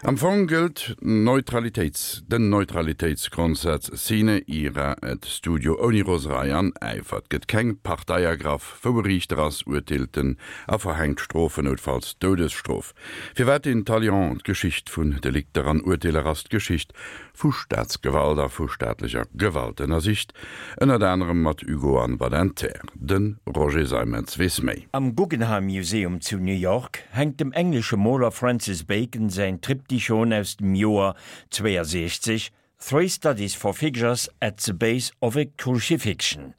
Am Fong gëllt Neutralitéits den Neutralitéitsgrondsaz sine ira et studio, ouni Roserei an Äifer. Et gëtt keng Partei ergraff, wou e Riichter ass, urteelt en a verhänkt Strofen, noutfalls d'Doudesstrof. Firwat den Talion? D'Geschicht vun Delikter an Urteeler ass d'Geschicht vu Staatsgewalt a vu staatlecher Gewalt, ënnersicht ënnert anerem mat Hugo an Badinter. De Roger Seimetz weess méi. Am Guggenheim Museum zu New York hänkt dem englesche Moler Francis Bacon säin Triptychon aus dem Joer 62, Three Studies for Figures at the Base of a Crucifixion.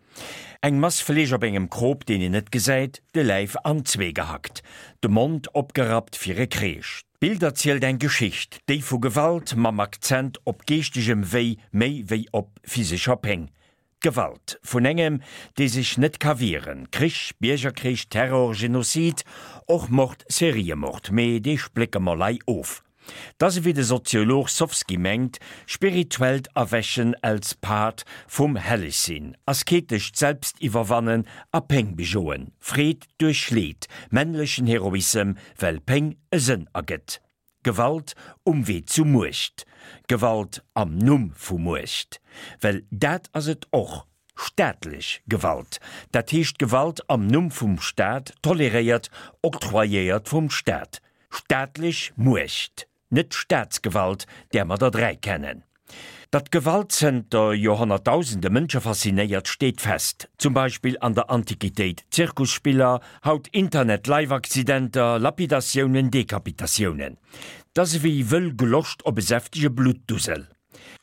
Eng Mass Fleesch op engem Krop, deen een net gesäit, de Läif an zwee gehackt, de Mond opgerappt fir e Kreesch. D'Bild erzielt eng Geschicht, déi vu Gewalt mam Akzent op geeschtegem Wéi méi wéi op physescher Péng. D'Gewalt vun engem, dee sech net ka wieren, Krich, Biergerkrich, Terror, Genozid, och Mord, Seriemord, mee dee splécke mer lei of. 't ass ewéi de Soziolog Sofsky mengt, spirituellt Erwächen als Part vum Hellegsinn, asketescht Selbstiwwerwannen a Péng bejoen, Freed duerch Leed, männlechen Heroissem, well Péng e Sënn ergëtt. Gewalt um Wee zu Muecht. Gewalt am Numm vu Muecht. Well dat ass et och, staatlech Gewalt. Dat heescht Gewalt am Numm vum Staat, toleréiert, octroyéiert vum Staat. Staatlech Muecht. Net d'Staatsgewalt, där mer der 3 kennen. Datt Gewalt zënter Joerhonnertdausende Mënsche faszinéiert, steet fest. Zum Beispill an der Antiquitéit Zirkusspiller, haut Internet-Live-Accidenter, Lapidatiounen, Dekapitatiounen. 't ass ewéi wëll Gloscht op e säftege Bluttdusel.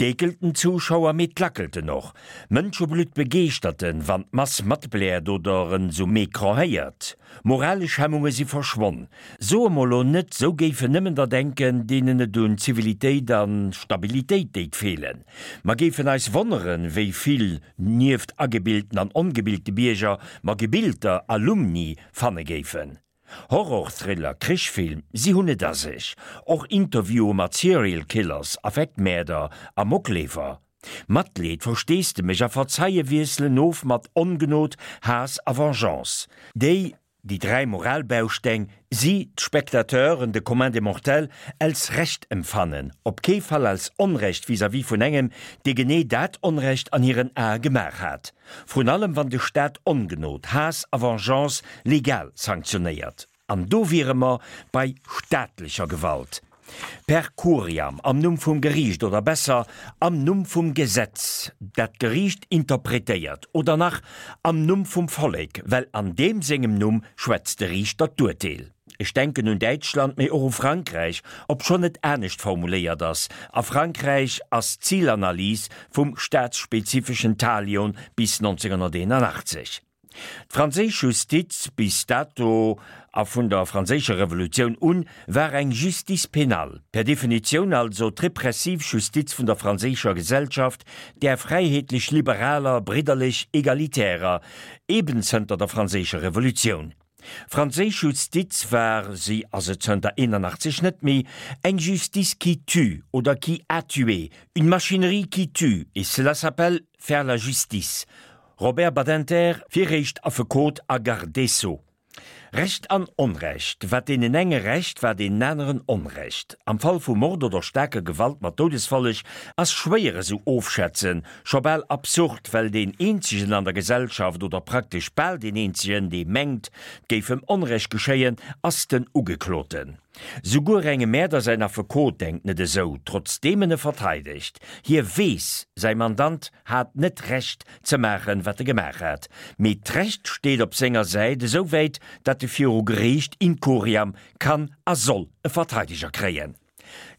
D'eekelt den Zuschauer, mee d'lackelt en och. Mënscheblutt begeeschtert en, wann d'Mass matbläert oder en s'um Ecran héiert. Moralesch Hemmunge si verschwonn. Soe mer lo net, sou géifen nëmmen der denken, deenen et un Zivilitéit a Stabilitéit déit feelen. Mer géifen eis wonneren, wéi vill, nieft agebilten an ongebilte Bierger, mer gebilter Alumni fanne géifen. Horror-Thriller, Krichfilm, si hunn et a sech. Och Interviewe mat Serial Killers, Affektmäerder, Amokleefer. Matleed, Versteesdemech a Verzeie wiesselen of mat Ongnod, Haass a Vengeance. Déi, déi 3 Moralbausteng, si d'Spectateuren, de Commun des mortels, als Recht emfannen, op kee Fall als Onrecht vis-à-vis vun engem, dee genee dat Onrecht an hiren Ae gemaach hat. Vrun allem wann de Staat Ongnod, Haass a Vengeance legal sanktionéiert. An do wiere mer bei staatlecher Gewalt. Per curiam, am Numm vum Geriicht oder besser, am Numm vum Gesetz, dat d'Geriicht interpretéiert, oder nach, am Numm vum Vollek, well an deem sengem Numm schwätzt de Riichter d'Urteel. Ech denken un Däitschland, mee och u Frankräich, obschonn et anescht formuléiert ass. A Frankräich ass d'Zilanalys vum staatsspezifeschen Talion bis 1981. D'franséisch Justiz bis dato a vun der Franséischer Revolutioun un war eng Justice pénale, per Definitioun also d'repressiv Justiz vun der franséischer Gesellschaft, där fräiheetlech-liberaler, bridderlech-egalitärer, eben zënter der Franséischer Revolutioun. Franséisch Justiz war, si ass et zënter 81 net méi, eng Justice qui tue oder qui a tué, une machinerie qui tue, et cela s'appelle faire la justice. Robert Badinter, viréischt Affekot a Garde des Sceaux. Recht an Onrecht, wat deenen enge Recht, war deenen aneren Onrecht. Am Fall vu Mord oder staarker Gewalt mat Doudesfolleg ass schwéier esou ofschätzen, Scho bal absurd, well deen eenzegen an der Gesellschaft, oder praktesch bal deen eenzegen, dee mengt, 't géif em Onrecht geschéien, ass den Ugekloten. Souguer engem Mäerder säin Affekot denkt net esou, trotzdeem en e verteidegt. Hie weess, säi Mandant hat net Recht ze maachen, wat e gemaach hat, mee d'Recht steet op senger Säit, esouwäit, datt e viru Geriicht in curiam kann a soll e Verteideger kréien.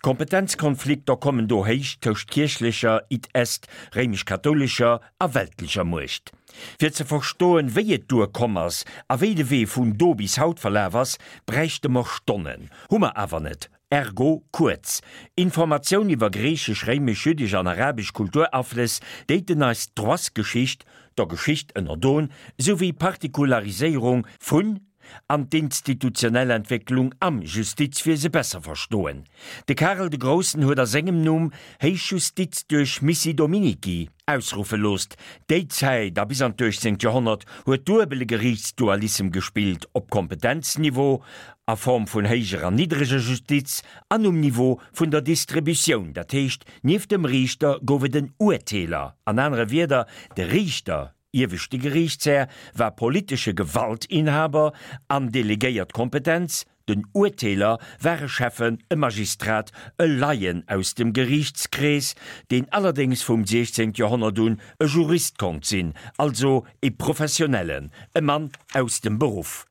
Kompetenzkonflikter kommen do héich tëscht kierchlecher, id est réimesch-kathoulescher, a weltlecher Muecht. Fir ze verstoen, wéi et duer komm ass a wéi de Wee vun do bis haut verlaf ass, bräichte mer Stonnen. Hu mer awer net. Ergo kuerz Informatioun iwwer griichesch, réimesch, jüddesch an arabesch Kulturaflëss déiten eis d'Droitsgeschicht, der Geschicht ënnerdon, souwéi Partikulariséierung vun an d'institutionell Entwécklung am Justizwiese besser verstoen. De Karel de Groussen huet a sengem Numm Héich Justiz duerch Missi Dominici. ausruffe loosst. Déi Zäit a bis an d'uechtzéngt Joerhonnert huet duebele Geriichtsdualissem gespillt, op Kompetenzniveau, a Form vun héijer an niddreger Justiz, an um Niveau vun der Distributioun, dat heescht, nieft dem Riichter gouf et en Urteeler, an anere Wierder, de Riichter, ieweschte Geriichtshär, war politesche Gewaltinhaber an delegéiert Kompetenz, Den Urteeler war e Schäffen, e Magistrat, e Laien aus dem Geriichtskrees, deen allerdéngs vum 16. Joerhonnert un e Jurist konnt sinn, also e Professionellen, e Mann aus dem Beruff.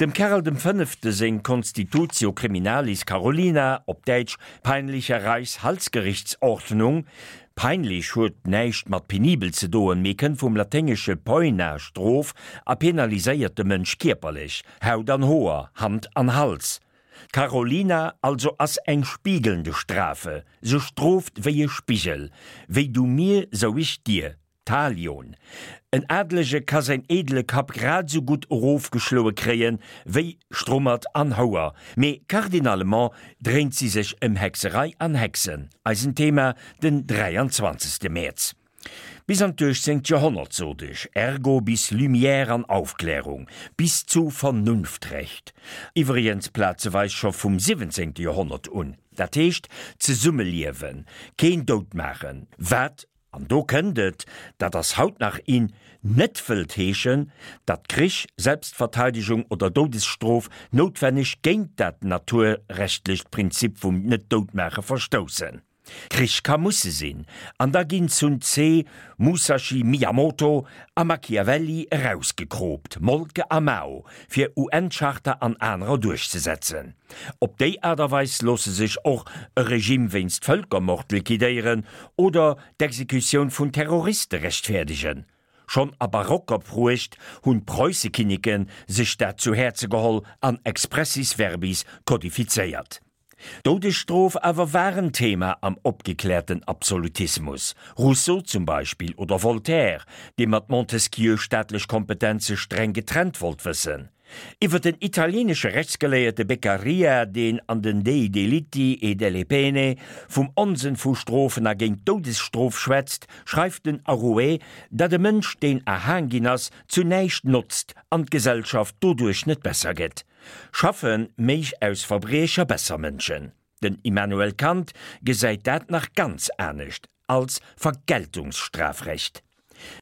Dem Karel dem Fënnefte seng Constitutio Criminalis Carolina, op Däitsch Peinliche Reichshalsgerichtsordnung, peinlich huet näischt mat penibel ze doen, mee kënnt vum laténgesche poena, Strof, a penaliséiert de Mënsch kierperlech, Haut an Hoer, Hand an Hals. D'Carolina also ass eng spiegelnde Strafe, se strooft wéi e Spigel, wéi du mir, sou ich dir. Talion. En Adelege ka säin edele Kapp grad esou gutt erofgeschloe kréien, wéi Strummert an Houer, mee cardinalement dréint si sech ëm Hexerei an Hexen, eisen Thema den 23. Mäerz. Bis an d'uechtzéngt Joerhonnert, sot ech, ergo bis Lumière an Aufklärung, bis zu Vernunftrecht, iwwregens plazeweis scho vum siwwenzéngte Joerhonnert un, dat heescht zesummeliewen, keen doutmaachen, wat, an do kënnt et, dat ass haut nach in, net wëllt heeschen, datt Krich, Selbstverteidegung oder Doudesstrof noutwenneg géint dat naturrechtlecht Prinzip vum Net-Doutmaache verstoussen. Krich ka musse sinn, an da ginn Sun Tse, Musashi Miyamoto a Machiavelli erausgekroopt, Moltke a Mao, fir UN-Charta an anerer duerchzesetzen. Op déi Aart a Weis loosse sech och e Regime wéinst Vëlkermord liquidéieren oder d'Exekutioun vun Terroriste rechtfäerdegen. Schonn a barocker Pruecht hunn d'Preussekinneke sech dat zu Häerze geholl an expressis verbis kodifizéiert. D'Doudesstrof awer war en Thema am opgekläerten Absolutismus, Rousseau zum Beispill oder Voltaire, dee mat Montesquieu staatlech Kompetenze streng getrennt wollt wëssen. Iwwer den italienesche Rechtsgeléierte Beccaria, deen an den Dei delitti e delle pene vum Onsënn vu Strofen a géint d'Doudesstrof schwätzt, schreift den Arouet, datt e Mënsch, deen erhaang ginn ass, zu näischt notzt an d'Gesellschaft doduerch net besser gëtt. Schaffe méich aus Verbriecher besser Mënschen? Den Immanuel Kant gesäit dat nach ganz anescht, als Vergeltungsstrafrecht.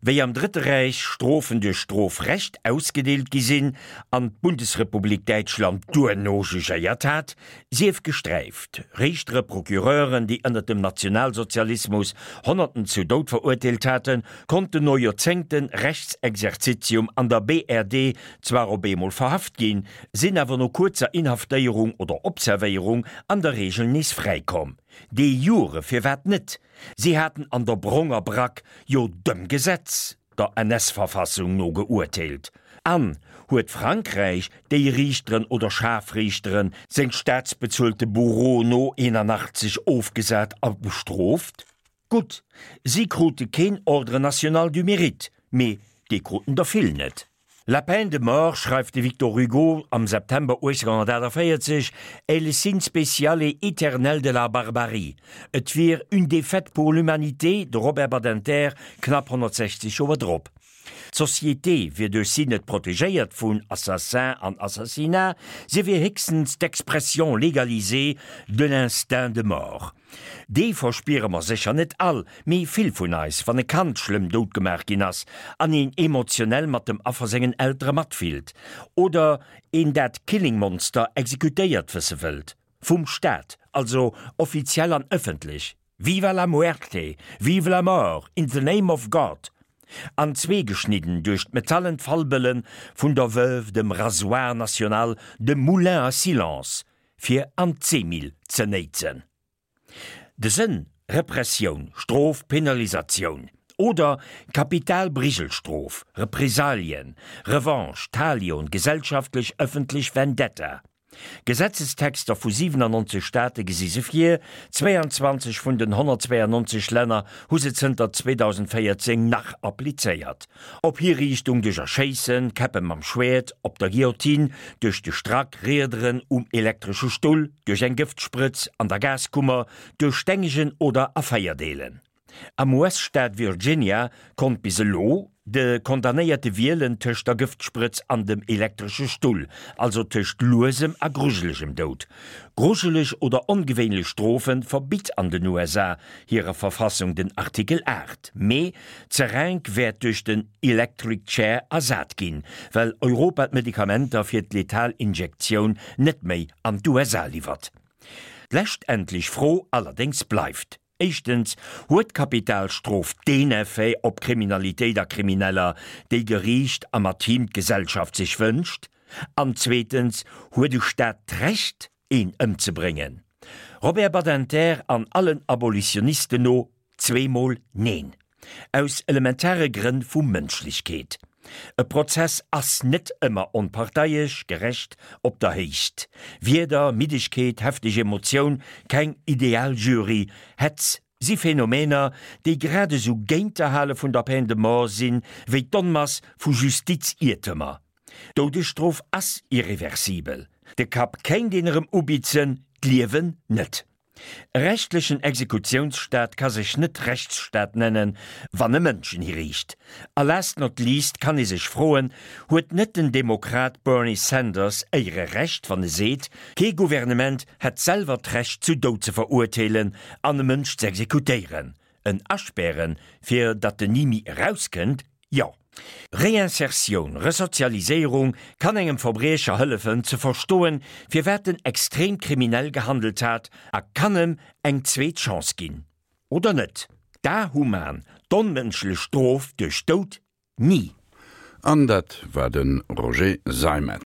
Wéi am Drëtte Räich Strofen duerch Strofrecht ausgedeelt gi sinn an d'Bundesrepublik Däitschland duerno jugéiert hat, sief gesträift, Riichtere, Procureuren, déi ënnert dem Nationalsozialismus Honnerten zu Doud verurteelt haten, konnten no Joerzéngten Rechtsexerzitium an der BRD zwar op eemol verhaft ginn, sinn awer no kuerzer Inhaftéierung oder Observéierung an der Reegel nees fräikomm. De jure firwat net? Si haten an der bronger Brack jo dem Gesetz, der NS-Verfassung no geurteelt. An huet Frankräich déi Riichteren oder Scharfriichteren seng staatsbezuelte Bourreaux no 81 ofgesat a bestrooft? Gutt, si krute keen Ordre national du Mérite, mee dee kruten der vill net. La peine de mort, schreift de Victor Hugo am September 1848, est le signe spécial et éternel de la barbarie. Et wier une défaite pour l'humanité, de Robert Badinter knapp 160 Joer drop. D'Société wier duerch si net protegéiert vun Assassin an Assassinat, si wier héchstens d'Expression légalisée de l'instinct de mort. Dee verspiere mer sécher net all, mee vill vun eis, wann e Kand schlëmm doutgemaach ginn ass an een emotionell mat dem Affer sengen Eltere matfillt oder een dat Killingmonster exekutéiert wësse wëllt. Vum Staat, also offiziell an ëffentlech. Viva la muerte! Vive la mort! In the name of God! An zwee geschnidden duerch d'metallen Fallbëlle vun der Veuve, dem Rasoir national, dem Moulin à silence, fir an d'Seemill ze néitsen. De Sënn, Repressioun, Strof, Penalisatioun oder Kapitalbrigelstrof, Represalien, Revanche, Talion, gesellschaftlech, ëffentlech Vendetta. Gesetzestexter vu 97 Staate gesi se vir, 22 vun den 192 Länner hu se zënter 2014 nach applizéiert. Op Hiriichtung duerch Erschéissen, Käppe mam Schwäert, op der Guillotine, duerch de Strack, Riederen um elektresche Stull, duerch eng Gëftsprëtz, an der Gaskummer, duerch Stengegen oder a Feierdeelen. Am US-Staat Virginia konnt bis elo de Condamnéierte wielen tëscht der Gëftsprëtz an dem elektresche Stull, also tëscht luesem a grujelegem Doud. Grujeleg oder ongewéinlech Strofe verbitt an den USA hirer Verfassung den Artikel 8, mee d'Seringue wäert duerch den Electric Chair ersat ginn, well Europa d'Medikamenter fir d'letal Injektioun net méi an d'USA liwwert. D'leschtendlech Fro allerdéngs bleift, Éischtens, huet d'Kapitalstrof deen Effet op Kriminalitéit a Krimineller, déi Geriicht a mat him d'Gesellschaft sech wënscht? An zweetens, huet e Staat d'Recht, een ëmzebréngen? Robert Badinter an allen Abolitionisten no, zweemol Neen. Aus elementare Grënn vu Mënschlechkeet. E Prozess ass net ëmmer onparteiesch, gerecht, op der Héicht. Wieder, Middegkeet, hefteg Emotioun, keng ideal Jury, Hetz, si Phänomener, déi grad esou géint d'Erhale vun der Peine de mort sinn, wéi d'Onmass vu Justiziertemer. D'Doudesstrof ass irreversibel. De Kapp kéint een erëm ubitzen, d'Liewen net. E rechtlechen Exekutiounsstaat ka sech net Rechtsstaat nennen, wann e Mënschen hiriicht. A last not least kann ee sech froen, Huet net den Demokrat Bernie Sanders éiere Recht, wann e seet, kee Gouvernement hätt selwer d'Recht zu Doud ze verurteelen an e Mënsch z'exekutéieren? En aspären, fir datt en ni méi erauskënnt? Jo. Reinsertioun, Resozialiséierung kann engem Verbriecher hëllefen ze verstoen, firwat en extrem kriminell gehandelt hat a kann em eng zweet Chance ginn. Oder net? D'Ahuman, d'onmënschlech Strof duerch Doud? Ni! An dat war de Roger Seimetz.